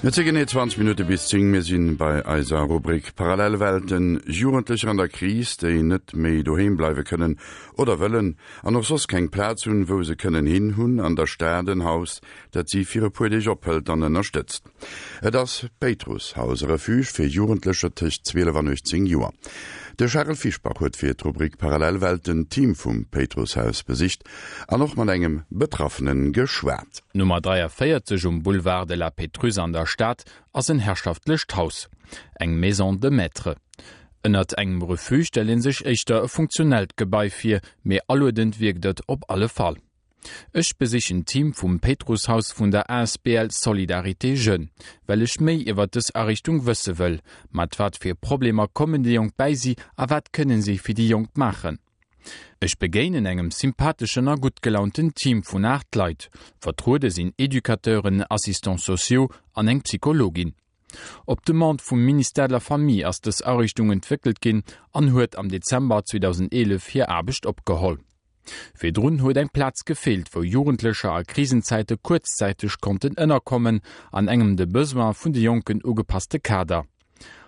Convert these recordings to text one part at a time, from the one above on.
Et si genee 20 Minutte bis 10. Mir si bei eiser Rubrik Parallelwelten. Jugendlecher an der Kris, déi net méi doheem bleiwe kënnen oder wëllen an och soss keng Plaz hunn, wou se kënnen hin, hunn an der Stad en Haus, dat si fir e puer Deeg ophëlt an ënnerstëtzt. Et ass d'Péitrusshaus, e Refuge fir Jugendlecher tëscht 12 an 18 Joer. De Charel Fischbach huet fir d'Rubrik Parallelwelten d'Team vum Péitrusshaus besicht an och mat engem Betraffene geschwat. D'Nummer 43 um Boulevard de la Pétrusse an der Stad ass en herrschaftlecht Haus, eng Maison de maître. Ënnert engem Refuge stellt ee sech éischter e funktionellt Gebai vir, mee aluedend wierkt et op alle Fall. Ech besichen d'Team vum Péitrusshaus vun der asbl Solidarité Jeunes, well ech méi iwwer dës Ariichtung wësse wëll. Mat wat fir Problemer kommen déi Jonk bäi si a wat kënne si fir déi Jonk maachen? Ech begéinen engem sympatheschen a gutt gelaunten Team vun 8 Leit. Vertruede sinn Educateuren, Assistants sociaux an eng Psychologin. Op Demande vum Ministère de la Famille ass dës Ariichtung entwéckelt ginn an huet am Dezember 2011 hir Aarbecht opgeholl. Virdrun huet eng Plaz gefeelt, wou Jugendlecher a Krisenzäite kuerzzäiteg konnten ënnerkommen, an engem de Besoin vun de Jonken ugepasste Kader.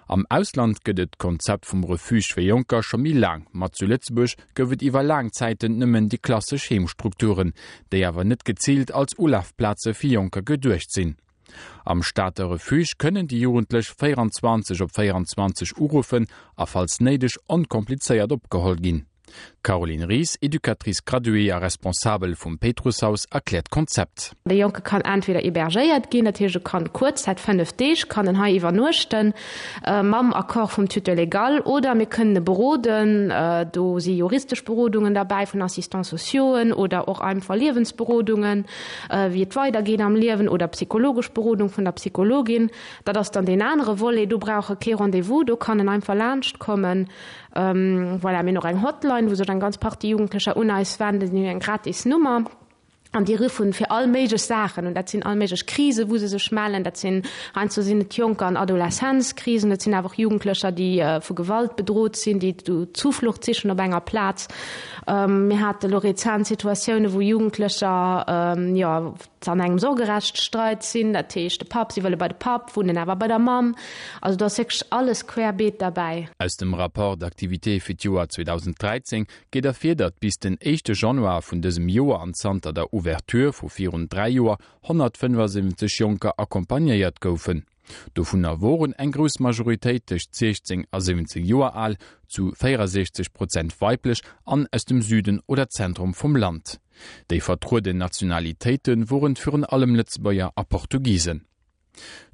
Am Ausland gëtt et d'Konzept vum Refuge fir Jonker scho méi laang, ma zu Lëtzebuerg gouf et iwwer laang Zäiten nëmmen déi klassesch Heemstrukturen, déi awer net geziilt als Ulafplaze fir Jonker geduecht sinn. Am Stater Refuge kënnen déi Jugendlech 24 op 24 uruffen a falls néideg onkomplizéiert opgeholl ginn. D'Caroline Ries, Educatrice graduée a Responsabel vum Péitrusshaus, erkläert d'Konzept. De Jonke kann entweder hébergéiert ginn, dat heescht e kann kuerz Zäit, 5 Deeg, kann en hei iwwernuechten, mam Accord vum Tuteur légal, oder mir kënnen e beroden, do si juristesch Berodungen derbäi vun Assistants sociauxen oder och einfach Liewensberodungen, wéi et weidergeet am Liewen, oder psychologesch Berodung vun der Psychologin. Dat ass dann deen anere Volet, do brauch e kee Rendez-vous, do kann en einfach laanschtkommen. Voilà, mir hunn och eng Hotline, wou sech eng ganz Partie Jugendlecher un eis wenden. Déi hunn eng gratis Nummer an déi ruffen fir all méiglech Saachen un. Dat sinn all méiglech Krisen, wou se sech mellen. Dat sinn, heiansdo sinn et Jonker an Adolescenzkrisen, et sinn awer och Jugendlecher, déi vu Gewalt bedrot sinn, déi do Zuflucht sichen op enger Plaz. Mir hate lo rezent Situatiounen, wou Jugendlecher, jo, an engem Sorgerechtsstreit sinn, dat heescht de Papp, si wëlle bei de Papp, wunnen awer bei der Mamm. Also do ass wierklech alles querbeet derbäi. Aus dem Rapport d'activité fir d'Joer 2013 geet ervir, datt bis den éischte Januar vun dësem Joer an zanter der Ouverture vu virun 3 Joer 175 Jonker accompagnéiert goufen. Dovunner woren eng grouss Majoritéit tëscht 16 a 17 Joer al, zu 64 Prozent weiblech an aus dem Süden oder Zentrum vum Land. Déi vertrueden Nationalitéite woren virun allem Lëtzebuerger a Portugisen.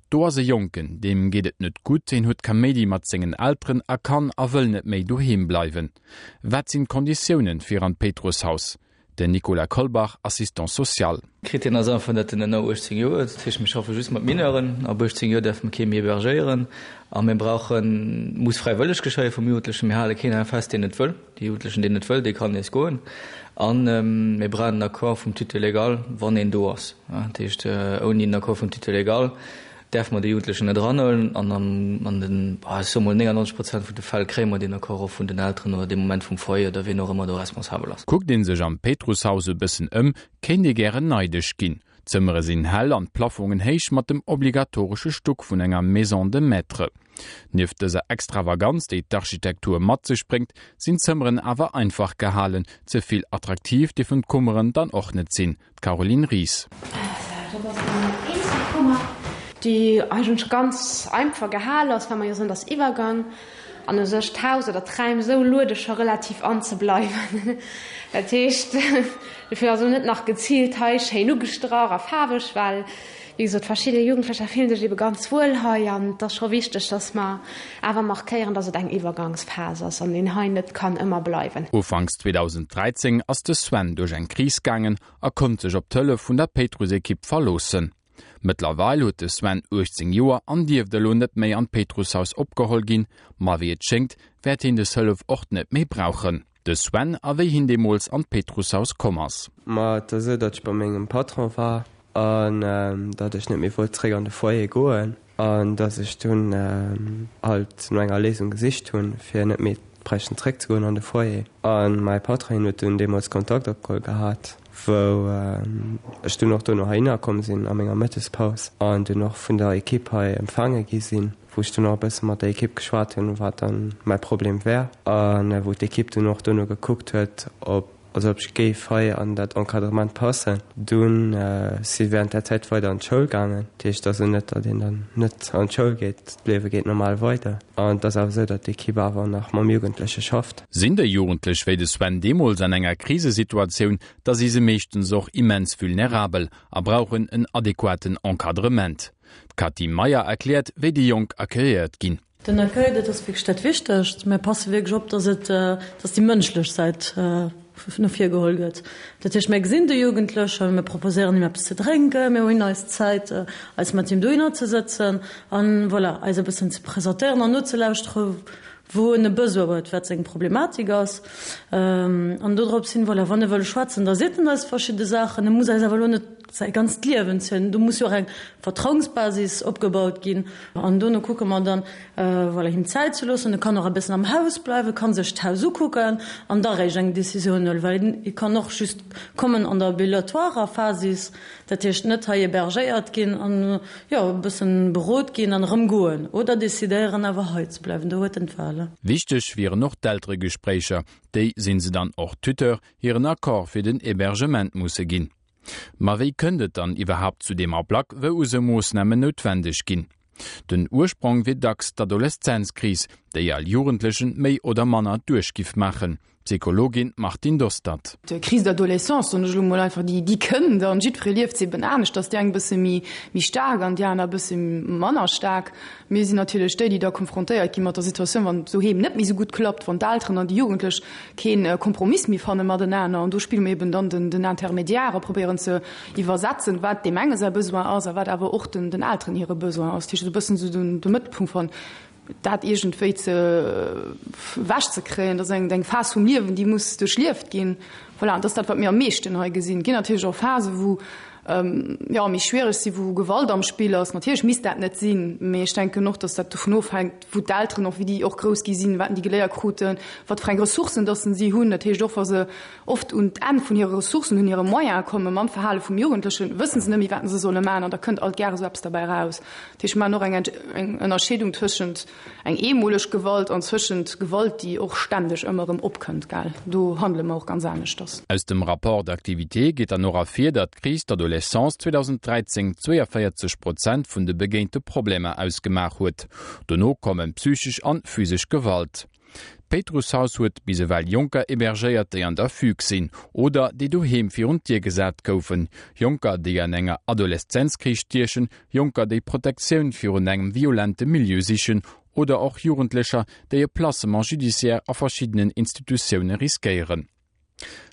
Do ass e Jonken, deem geet et net gutt, hien huet Kaméidi mat sengen Elteren a kann a wëll net méi doheem bleiwen. Wat sinn d'Konditiounen fir an d'Péitrusshaus? Den Nicolas Kolbach, Assistant social. Krittär ass einfach, datt en ënner 18 Joer huet. Dat heescht, mir schaffe just mat Mineuren. Ab 18 Joer däerfe mir kee méi hébergéieren. A mir brauchen, muss fräiwëlleg geschéie vum Jugendlechen. Mir hale keen fest, deen net wëll. Dee Jugendlechen, deen net wëll, dee kann nees goen. A mir brauchen den Accord vum Tuteur légal, wann een do ass. Dat heescht, ouni den Accord vum Tuteur légal däerfe mer de Jugendlechen net eranhuelen. An an den, ech soe mol, 99 Prozent vun de Fäll kréie mer deen Accord och vun den Elteren oder dee Moment vum Foyer oder wien och ëmmer do responsabel ass. Kuckt ee sech am Péitrusshaus e bëssen ëm, kéint ee gären neidesch ginn. D'Zëmmere sinn hell an d'Plafongen héich mat dem obligatoresche Stuck vun enger Maison de maître. Nieft dëser Extravaganz, déi d'Architektur mat sech bréngt, sinn d'Zëmmeren awer einfach gehalen. Ze vill attraktiv dierfen d'Kummeren dann och net sinn. D'Caroline Ries. Dat ass eng eenzel Kummer, déi eigentlech ganz einfach gehal ass, well mer jo soen, et ass Iwwergang an u sech d'Haus oder d'Räim esou luede scho relativ an ze bleiwen. Dat heescht, dofir ass elo net nach geziilt hei schéin ugestrach a faarweg, well wéi gesot verschidde Jugendlecher fillen sech ebe ganz wuel hei an et ass scho wichteg, dass mer awer markéieren, dass et eng Iwwergangsphas ass an een hei net kann ëmmer bleiwen. Ufanks 2013 ass de Sven duerch eng Kris gaangen a konnt sech op d'Hëllef vun der Péitruss-Ekipp verloossen. Mëttlerweil huet de Sven 18 Joer an dierft elo net méi an d'Péitrusshaus opgeholl ginn, ma wéi et schéngt, wäert hien des Hëllef och net méi brauchen. De Sven a wéi hien deemools an d'Péitrusshaus komm ass. Ma et ass esou, datt ech bei mengem Patron war an datt ech net méi wollt zréck an de Foyer goen an datt ech dunn halt no enger Léisung gesicht hunn, fir net méi bräichten zréck ze goen an de Foyer. A mäi Patron, hien huet dunn deemools Kontakt opgeholl gehat. wou ech dunn och dono heihinner komm sinn a menger Mëttespaus an dunn och vun der Ekipp hei empfaange gi sinn, wou ech dunn och e bësse mat der Ekipp geschwat hunn, wat dann mäi Problem wär a wou d'Ekipp dunn och dono gekuckt huet, ob, also ob ech géif hei an dat Encadrement passen. Dunn si während där Zäit weider an d'Schoul gaangen. Dat heescht also net, datt een dann net an d'Schoul geet, d'Liewe geet normal weider an et ass awer esou, datt d'Ekipp awer nach mam Jugendleche schafft. Sinn déi Jugendlech wéi de Sven deemools an enger Krisesituatioun, da si se meeschtens och immens vulnerabel a brauchen en adequaten Encadrement. D'Cathy Meyer erkläert, wéi déi Jonk accueilléiert ginn. Den Accueil, dat ass wierklech dat Wichtegst. Mir passe wierklech op, dass et, dass déi mënschlech Säit no vir geholl gëtt. Dat heescht, mir gesinn de Jugendlechen, mir proposéieren him eppes ze drénken, mir hunn eis Zäit, eis mat him dohinner ze sëtzen an, voilà, eis e bëssen ze presentéieren an nozelauschteren, wou en e Besoin huet, wat seng Problematik ass. An dodrops hin, voilà, wann e wëll schwätzen, da seet en eis verschidde Saachen. E muss eis awer elo net säi ganzt Liewen zielen. Do muss jo och eng Vertrauensbasis opgebaut ginn. An dono kucke mer dann, voilà, him Zäit ze loossen. E kann och e bëssen am Haus bleiwen, ka sech d'Haus ukucken an da réischt eng Decisioun huelen, well e kann och just kommen an der ambulatoirer Phasis, dat heescht net hei hébergéiert ginn an, jo, e bëssen berot ginn an erëm goen oder decidéieren awer hei ze bleiwen. Do huet en d'Wahl. Wichteg wieren och d'Elteregespréicher. Déi sinn se dann och Tuteur hiren Accord fir den Hébergement musse ginn. Ma wéi kënnt et dann iwwerhaapt zu deem Ablack, wou esou Moossnamen noutwendeg ginn? Den Ursprong wier dacks d'Adoleszenzkris, déi all Jugendlechen méi oder manner duerch giff maachen. D'Psychologin Martine Dostert. D'Crise d'adolescence, soen ech elo mol einfach, déi déi kënnt an jiddweree lieft se eben anescht, dass déi eng e bësse méi méi staark an déi aner e bësse manner staark. Mir sinn natierlech déi, déi da konfrontéiert gi mat der Situatioun, wann et doheem net méi esou gutt klappt, wann d'Elteren an déi Jugendlech kee Kompromiss méi fanne matenaner. An do spille mir eben dann den den Intermédiaire a probéieren ze iwwersetzen, wat deem enge säi Besoin ass a wat awer och den den Elteren hire Besoin ass. Dat heescht esou e bëssen esou den de Mëttelpunkt van dat iergendwéi ze ewech ze kréien, dat ass eng eng Phas vum Liewen, déi muss duerchlieft ginn. Voilà, an dat ass dat, wat mir am meeschten hei gesinn. Et ginn natierlech och Phasen, wou jo méi schwiereg sinn, wou Gewalt am Spill ass. Natierlech misst dat net sinn, mee ech denken och, datt dat dovun ofhänkt, wou d'Elteren och, wéi déi och grouss gi sinn, wat déi geléiert kruten, wat fir eng Ressourcen datt si hunn. Dat heescht och, wa se oft un d'Enn vun hire Ressourcen, un hire Moyene kommen mam Verhale vum Jugendlechen, wësse se net méi, wat se solle maachen an da kënnt alt gäre sou eppes derbäi eraus. Dat heescht, mir maachen och eng eng Ënnerscheedung tëschent eng eemoleg Gewalt an zwëschent Gewalt, déi och ständeg ëmmer erëm opkënnt, gell. Do handele mer och ganz aneschters. Aus dem Rapport d'activité geet dann och ervir, datt d'Crise d'adolescence 2013 42 Prozent vun de begéinte Problemer ausgemaach huet. Dono kommen psychesch an physesch Gewalt. D'Péitrusshaus huet bis ewell Jonker hébergéiert, déi an der Fugue sinn oder déi doheem virun d'Dier gesat goufen, Jonker, déi an enger Adoleszenzkris stiechen, Jonker, déi Protektioun virun engem violente Milieu sichen oder och Jugendlecher, déi e Placement judiciaire a verschiddenen Institutioune riskéieren.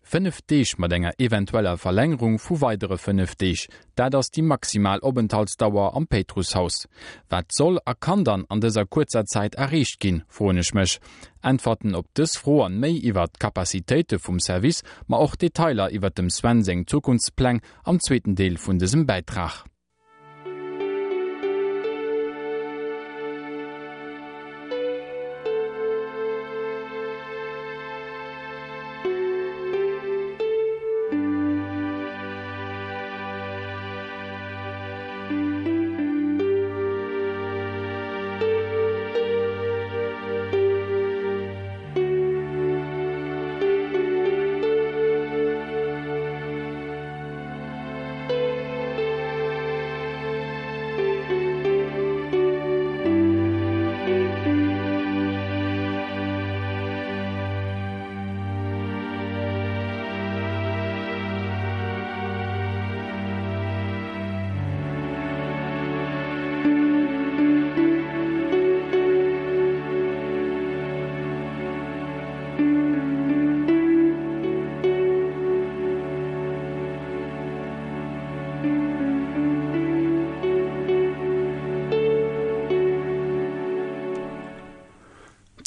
5 Deeg mat enger eventueller Verlängerung vu weidere 5 Deeg, dat ass déi maximal Openthaltsdauer am Péitrusshaus. Wat soll a kann dann an dëser kuerzer Zäit erreecht ginn, froen ech mech. Äntwerten op dës Fro an méi iwwert d'Capacitéite vum Service, ma och Detailer iwwert dem Sven seng Zukunftspläng am zweeten Deel vun dësem Bäitrag.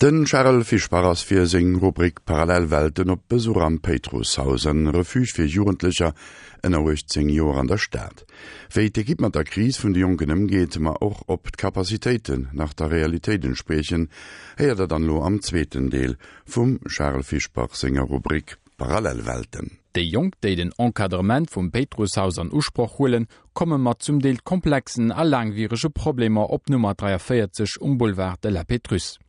Den Charel Fischbach ass fir seng Rubrik Parallelwelten op Besuch am Péitrusshaus, en Refuge fir Jugendlecher ënner 18 Joer an der Stad. Wéi d'Ekipp mat der Kris vun de Jonken ëmgeet, ma och ob d'Capacitéiten nach der Realitéit entspriechen, héiert der dann elo am zweeten Deel vum Charel Fischbach senger Rubrik Parallelwelten. Déi Jonk, déi den Encadrement vum Péitrusshaus an Usproch huelen, komme mat zum Deel komplexen a laangwierege Problemer op Nummer 43 um Boulevard de la Pétrusse.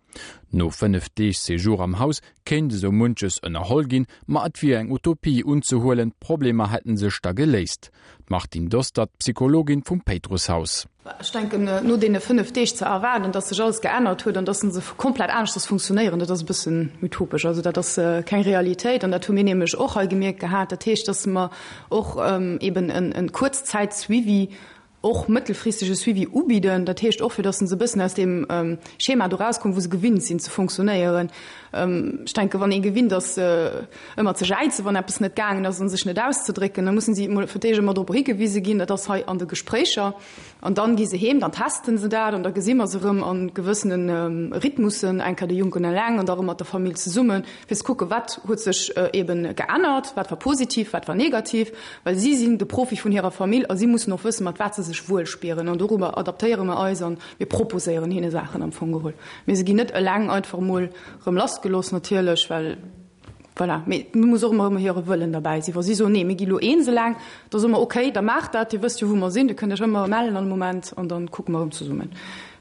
No 5 Deeg Séjour am Haus kéint esou munches ënnerholl ginn, ma et wier eng Utopie unzehuelen, d'Problemer hätten sech da geléist. D'Martine Dostert, Psychologin vum Péitrusshaus. Ech denken, no deene 5 Deeg ze erwaarden, dass sech alles geännert huet an dass se komplett aneschters funktionéieren, dat ass e bëssen utopesch. Also dat ass keng Realitéit an dat hu mir nämlech och hei gemierkt gehat. Dat heescht, dass mer och eben e Kuerzzäitsuivi, och mëttelfristege Suivi ubidden. Dat heescht och, fir dass se e bëssen aus deem Schema do erauskommen, wou se gewinnt sinn ze funktionéieren. Ech denken, wann ee gewinnt ass, ëmmer ze jäizen, wann eppes net gaangen ass, a sech net auszedrécken, da mussen si emol fir d'éischt ëmmer drop higewise ginn, dat ass hei an de Gespréicher. An dann gi se heem, dann testen se dat an da gesi mer se erëm a gewëssene Rhythmussen, eng Kéier de Jonken eleng an da erëm mat der Famill zesummen, fir ze kucken, wat huet sech eeben geännert, wat war positiv, wat war negativ, well si sinn de Profi vun hirer Famill a si mussen och wëssen, mat wat se sech wuel spieren. An dorobber adaptéiere mer eis an mir proposéieren hinne Saachen am Fong geholl. Mee se ginn net eleng einfach emol erëm lassgelooss natierlech, well voilà. Mee et muss och ëmmer hire Wëllen derbäi sinn. Wa si soen, nee, mir gi lo eens eleng, da soe mer, okay, da maacht dat, Dir wësst jo, wou mer sinn, Dir kënnt Iech ëmmer mellen all Moment an da kucke mer erëm zesummen.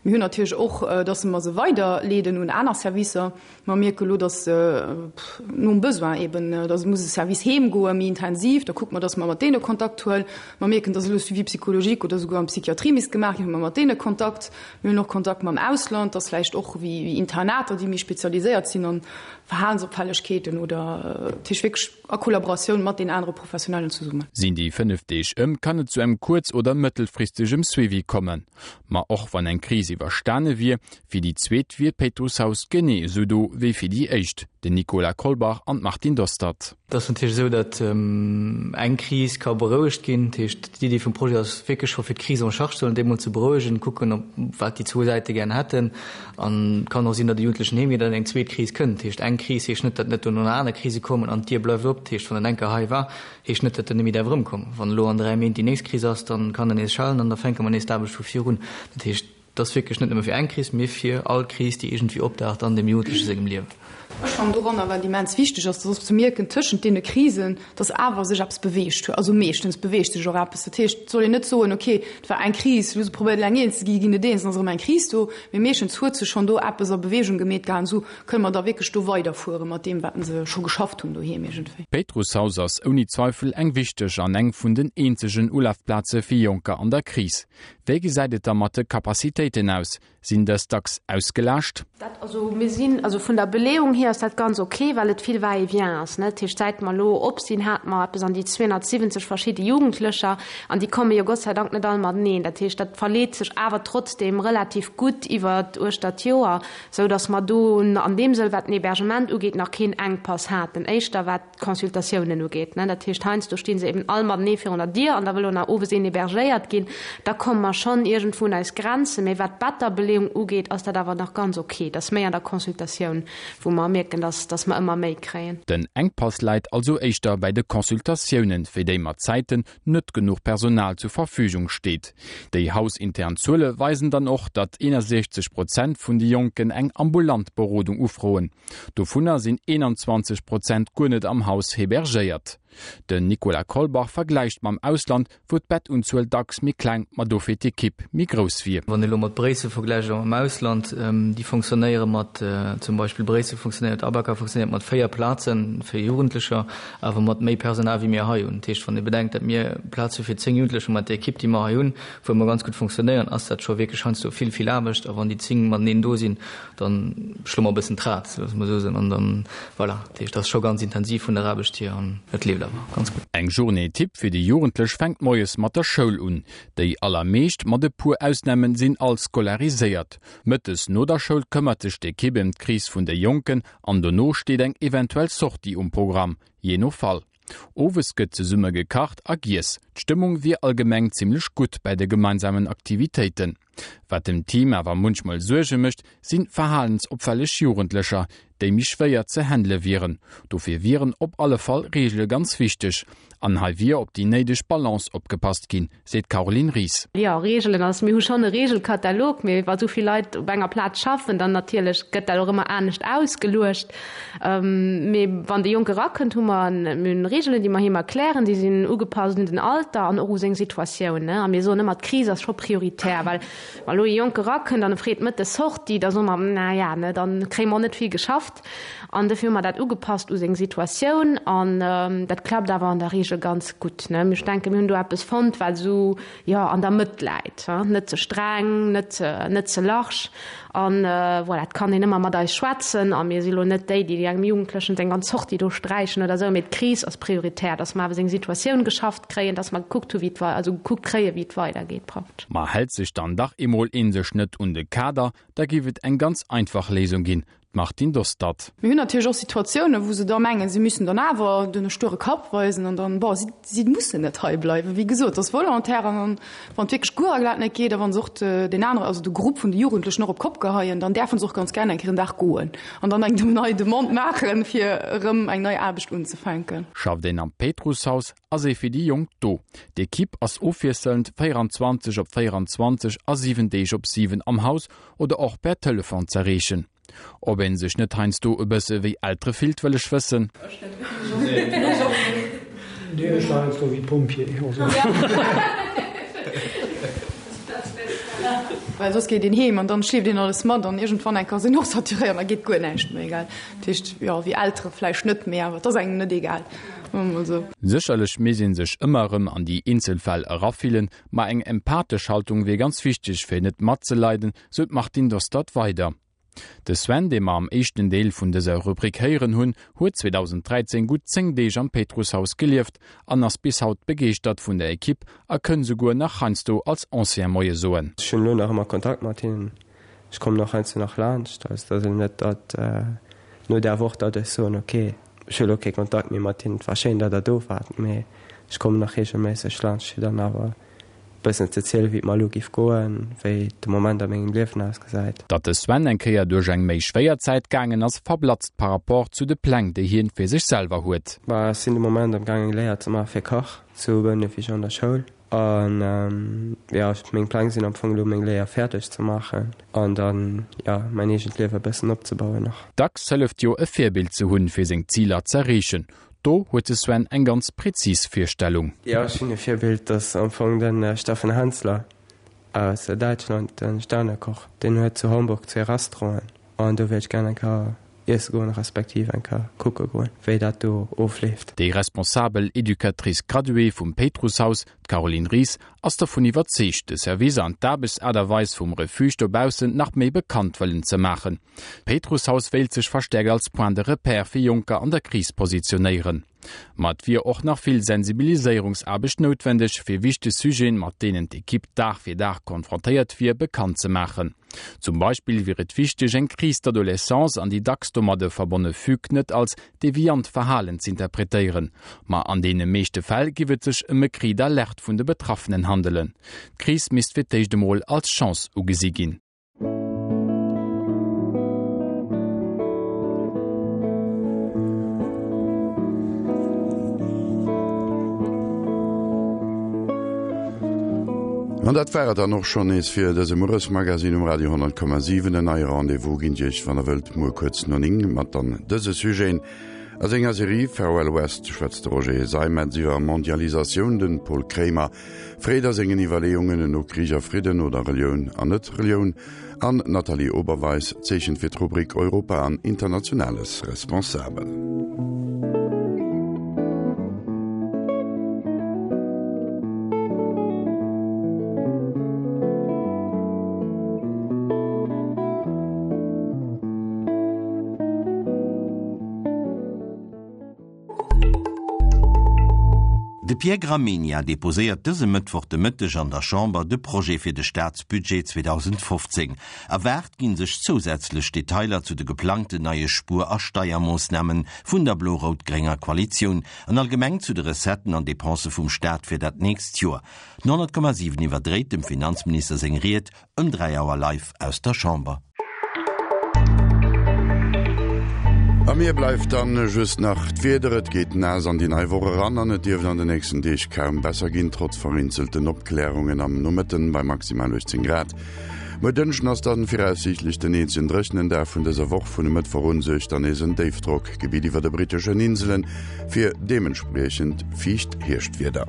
Mir hunn natierlech och, dass mer se weiderleeden un aner Servicer. Mer mierke lo, dass nom Besoin eben, dass muss e Service heem goen, méi intensiv, da kucke mer, dass mer mat deene Kontakt huelen. Mer mierken, dass elo Suivi psychologique oder souguer an d'Psychiatrie misst gemaach ginn, hu mer mat deene Kontakt. Mir hunn och Kontakt mam Ausland, dass vläicht och wéi Internater, déi méi spezialiséiert sinn an Verhalensopfällegkeeten oder dat heescht wierklech a Kollaboratioun mat den anere Professionellen zesummen. Sinn déi 5 Deeg ëm, kann et zu engem kuerz oder mëttelfristegem Suivi kommen. Ma och wann eng Kris iwwerstane wier, fir déi zweet wier d'Péitrusshaus genee esou do wéi fir déi éischt. Den Nicolas Kolbach an d'Martine Dostert. Et ass natierlech esou, datt eng Kris ka berouegt ginn. Dat heescht, d'Iddi vum Projet ass wierklech scho fir d'Krise en charge ze huelen, déi emol ze berouegen, kucken, ob wat déi zwou Säite gären hätten. An et kann och sinn, datt e Jugendlechen heem geet an eng zweet Kris kënnt. Dat heescht, eng Kris heescht net, datt net dono nach aner Krise kommen an d'Dier bleift op. Dat heescht, wann en eng Kéier hei war, heescht net, datt en net méi däerf erëmkommen. Wann elo an 3 Méint déi nächst Kris ass, da kann en nees schellen an da fänke mer nees d'Aarbecht vu vir un. Dat heescht, et ass wierklech net nëmme fir eng Kris, mee fir all Kris, déi iergendwéi opdaucht an deem Jugendleche sengem Liewen. Ech fannen doranner, wat immens wichteg ass, dat ass ze mierken tëschent deene Krisen, dass awer sech eppes beweegt huet. Also meeschtens beweegt sech och eppes. Dat heescht, et soll een net soen, okay, et war eng Kris, elo hu se probéiert eleng eens ze ginn, ginn net eens, dann ass erëm eng Kris do. Mee meeschtens huet sech schonn do eppes a Beweegung gemeet gehat. An esou kënne mer da wierklech do weiderfuere mat deem, wat se scho geschafft hunn doheem iergendwéi. D'Péitrusshaus ass ouni Zweifel eng wichteg an eng vun den eenzegen Ulafplaze fir Jonker an der Kris. Wéi gesäit et da mat de Capacitéiten aus? Sinn dës dacks ausgelaascht? Dat, also mir sinn, also vun der Beleeung hier ass dat ganz ok, well et vill Va-et-vient ass, ne. Dat heescht, säit mer elo op sinn, hate mer eppes an déi 270 verschidde Jugendlecher an déi komme jo Gott sei Dank net all mateneen. Dat heescht, dat verleet sech awer trotzdeem relativ gutt iwwer uechter d'Joer, esou datt mer do an deem Sënn, wat den Hébergement ugeet, nach keen Enkpass haten. Éischter wat d'Consultatiounen ugeet. Dat heescht, heiansdo sti se eben all matenee virun der Dier an da wëll och nach owes een hébergéiert ginn. Da komme mer schonn iergendwou un eis Grenzen. Mee wat d'Betterbeleeung ugeet, ass dat awer nach ganz ok. Dat ass méi an der Consultatioun, wou mer mierken, dass, dass mer ëmmer méi kréien. Den Enkpass läit also éischter bäi de Consultatiounen, fir déi mat Zäiten net genuch Personal zur Verfügung steet. Déi hausintern Zuele weisen dann och, datt 61 Prozent vun de Jonken eng ambulant Berodung ufroen. Dovunner sinn 21 Prozent guer net am Haus hebergéiert. Den Nicolas Kolbach vergläicht mam Ausland, wou d'Bettunzuel dacks méi kleng, ma dofir d'Ekipp méi grouss wier. Wann ee lo mat Bréissel vergläicht oder mam Ausland, déi fonctionnéiere mat, zum Beispill Bréissel fonctionnéiert, Abaka fonctionnéiert mat 4 Plaze fir Jugendlecher, awer mat méi Personal wéi mir hei hunn. Dat heescht, wann ee bedenkt, datt mir Plaz hu fir 10 Jugendlecher mat der Ekipp, déi mer hei hunn, wou mer ganz gutt fonctionnéieren, ass dat scho wierklech heiansdo vill, vill Aarbecht. A wann déi 10 mateneen do sinn, Dann schloe mer e bëssen d'Rad, loosse mer esou soen, an dann, voilà. Dat heescht, et ass scho ganz intensiv vun der Aarbecht hier an et leeft awer ganz gutt. Eng Journée type fir déi Jugendlech fänkt moies mat der Schoul un. Déi allermeescht, mat e puer Ausnamen, sinn all scolariséiert. Mëttes no der Schoul këmmert sech d'Ekipp ëm d'Kris vun de Jonken an dono steet eng eventuell Sortie um Programm, jee no Fall. Owes gëtt zesumme gekacht a giess. D'Stëmmung wier allgemeng zimmlech gutt bäi de gemeinsamen Aktivitéiten. Wat dem Team awer munchmol Suerge mécht, si verhalensopfälleg Jugendlecher. déi méi schwéier ze handele wieren. Dofir wieren op alle Fall Reegele ganz wichteg. An hei wier op déi néideg Balance opgepasst ginn, seet d'Caroline Ries. Jo, Reegelen, also mir hu schonn e Reegelkatalog, mee wa sou vill Leit op enger Plaz schaffen, dann natierlech gëtt dat och ëmmer anescht ausgeluecht. Mee wann de Jonke erakënnt, hu mer mir hunn Reegelen, déi mer him erklären, déi sinn ugepasst un den Alter an och u seng Situatioun. A mir soen ëmmer, d'Kris ass scho prioritär, well wa lo e Jonke erakënnt an e freet mëttes Sortie, da soe mer, na ja, ne, da kréie mer och net vill geschafft. An dofir hu mer dat ugepasst u seng Situatioun an dat klappt awer an der Reegel ganz gutt. Ech denken, mir hunn do eppes fonnt, wat esou, jo, an der Mëtt läit, net ze streng, net net ze large. An voilà, et kann een ëmmer mat eis schwätzen a mir si lo net déi, déi engem Jugendlechen seng ganz Sortie do sträichen oder esou, mee d'Kris ass prioritär, dass mer awer seng Situatioun geschafft kréien, dass mer gekuckt hu wéi et wei, also gekuckt kréien, wéi et weidergeet praktesch. Ma hält sech dann dach emol een sech net un de Kader, da géif et eng ganz einfach Léisung ginn, D'Martine Dostert. Mir hunn natierlech och Situatiounen, wou se da mengen, si müssen dann awer den sture Kapp weisen an dann, bon, si, si mussen net hei bleiwen. Wéi gesot, et ass volontaire an dann, wann et wierklech guer a glat net geet a wa se och deen anere, also de Grupp vun de Jugendlechen och op d'Kopp geheien, dann däerfe se och ganz gär eng Kéier en Dag goen an dann eng nei Demande maachen, fir erëm eng nei Aarbecht unzefänken. Schafft een am Péitrusshaus, ass ee fir déi Jonk do. D'Ekipp ass ofwiesselnd 24 op 24 a 7 Deeg op 7 am Haus oder och per Telefon z'erreechen. Ob een sech net heiansdo e bësse wéi Eltere fillt, wëll ech wëssen. Nee, ech war heiansdo wéi Pompjee. Well soss geet een heem an dann schleeft een alles mat an iergendwann eng Kéier ass een och saturéiert an da geet guer näischt méi, gell. Dat heescht, jo, wéi Eltere vläicht net, mee awer et ass engem net egal, soe mer mol esou. Sécherlech misst ee sech ëmmer erëm an déi eenzel Fäll erafillen, Ma eng empathesch Haltung wier ganz wichteg, fir net matzeleiden, sou d'Martine Dostert weider. De Sven, dee mer am éischten Deel vun dëser Rubrik héieren hunn, huet 2013 gutt 10 Deeg am Péitrusshaus gelieft an ass bis haut begeeschtert vun der Ekipp a kënn souguer nach heiansdo als Ancien Moie soen. Ech hunn elo nach ëmmer Kontakt mat hinnen. Ech kommen och heiansdo nach laanscht. Also et ass elo net, datt no där Woch, datt ech soen, ok, ech hu elo kee Kontakt méi mat hinnen, et war schéin, datt der do waart, mee ech kommen nach reegelméisseg laanscht, fir dann awer e bëssen ze zielen, wéi et mer elo géif goen, wéi de Moment a mengem Liewen ausgesäit. Datt de Sven eng Kéier duerch eng méi schwéier Zäit gaangen ass, verblatzt par rapport zu de Pläng, déi hien fir sech selwer huet. Bah, ech sinn de Moment am gaang eng Léier ze maache fir Kach zu Bouneweg an der Schoul. An jo, meng Pläng sinn am Fong elo meng Léier fäerdeg ze maachen an dann, jo, mäin eegent Liewe e bëssen opzebauen nach. Dacks hëlleft jo e Virbild ze hunn, fir seng Ziler z'erreechen. Do huet de Sven eng ganz präzis Virstellung. Jo, ech hunn e Virbild, dat ass am Fong de Steffen Henssler aus Däitschland, de Sternekoch. Deen huet zu Hamburg zwee Restauranten an do wéilt ech gär eng Kéier iesse goen, respektiv eng Kéier kucke goen, wéi dat do ofleeft. Déi responsabel Educatrice graduée vum Péitrusshaus, d'Caroline Ries, ass dervun iwwerzeegt, de Service an d'Aarbechtsaart a Weis vum Refuge dobaussen nach méi bekannt wëllen ze maachen. D'Péitrusshaus wéilt sech verstäerkt als Point de repère fir Jonker an der Kris positionéieren. Ma et wier och nach vill Sensibiliséierungsaarbecht noutwendeg, fir wichteg Sujeten, mat deenen d'Ekipp Dag fir Dag konfrontéiert wier, bekannt ze maachen. Zum Beispill wier et wichteg, eng Crise d'adolescence an déi dacks domadde verbonne Fugue net als deviant Verhalen z'interpretéieren. Ma an deene meeschte Fäll giff et sech ëm e Cri d'alerte vun de Betraffenen handelen. D'Kris misst fir d'éischt emol als Chance ugesi ginn. An dat war et dann och schonn nees fir dëse Mueresmagazine um Radio 10,7. En neie Rendez-vous ginn Dir Iech, wann Der wëllt, muer kuerz no 9 mat dann dëse Sujeten. A senger Serie Farewell West schwätzt de Roger Seimetz iwwer Mondialisatioun, de Paul Kremer Freet a sengen Iwwerleeungen no Krich a Fridden oder Relioun an Net-Relioun an d'Nathalie Oberweis zeechent fir d'Rubrik Europa an Internationales responsabel. De Pierre Gramegna deposéiert dëse Mëttwoch de Mëtteg an der Chamber de Projet fir de Staatsbudget 2015. Erwaart ginn sech zousätzlech Detailer zu de geplangten neie Spuer a Steiermoossname vun der blo-rout-grénger Koalitioun an allgemeng zu de Recetten an Depensë vum Staat fir dat nächst Joer. Den 100,7 iwwerdréit dem Finanzminister seng Ried Ëm 3 Auer live aus der Chamber. A mir bleift dann just nach d'Wieder. Et geet naass an déi nei Woch eran an et dierft an de nächsten Deeg kaum besser ginn, trotz vereenzelten Opklärungen am Nomëtten bei maximal 18 Grad. Muer Dënschden ass dann viraussiichtlech den eenzegen dréchenen Dag vun dëser Woch. Vun e Mëttwoch un suergt dann nees en Déifdrockgebitt iwwer de britteschen Inselen fir deementspriechend fiicht Hierschtwieder.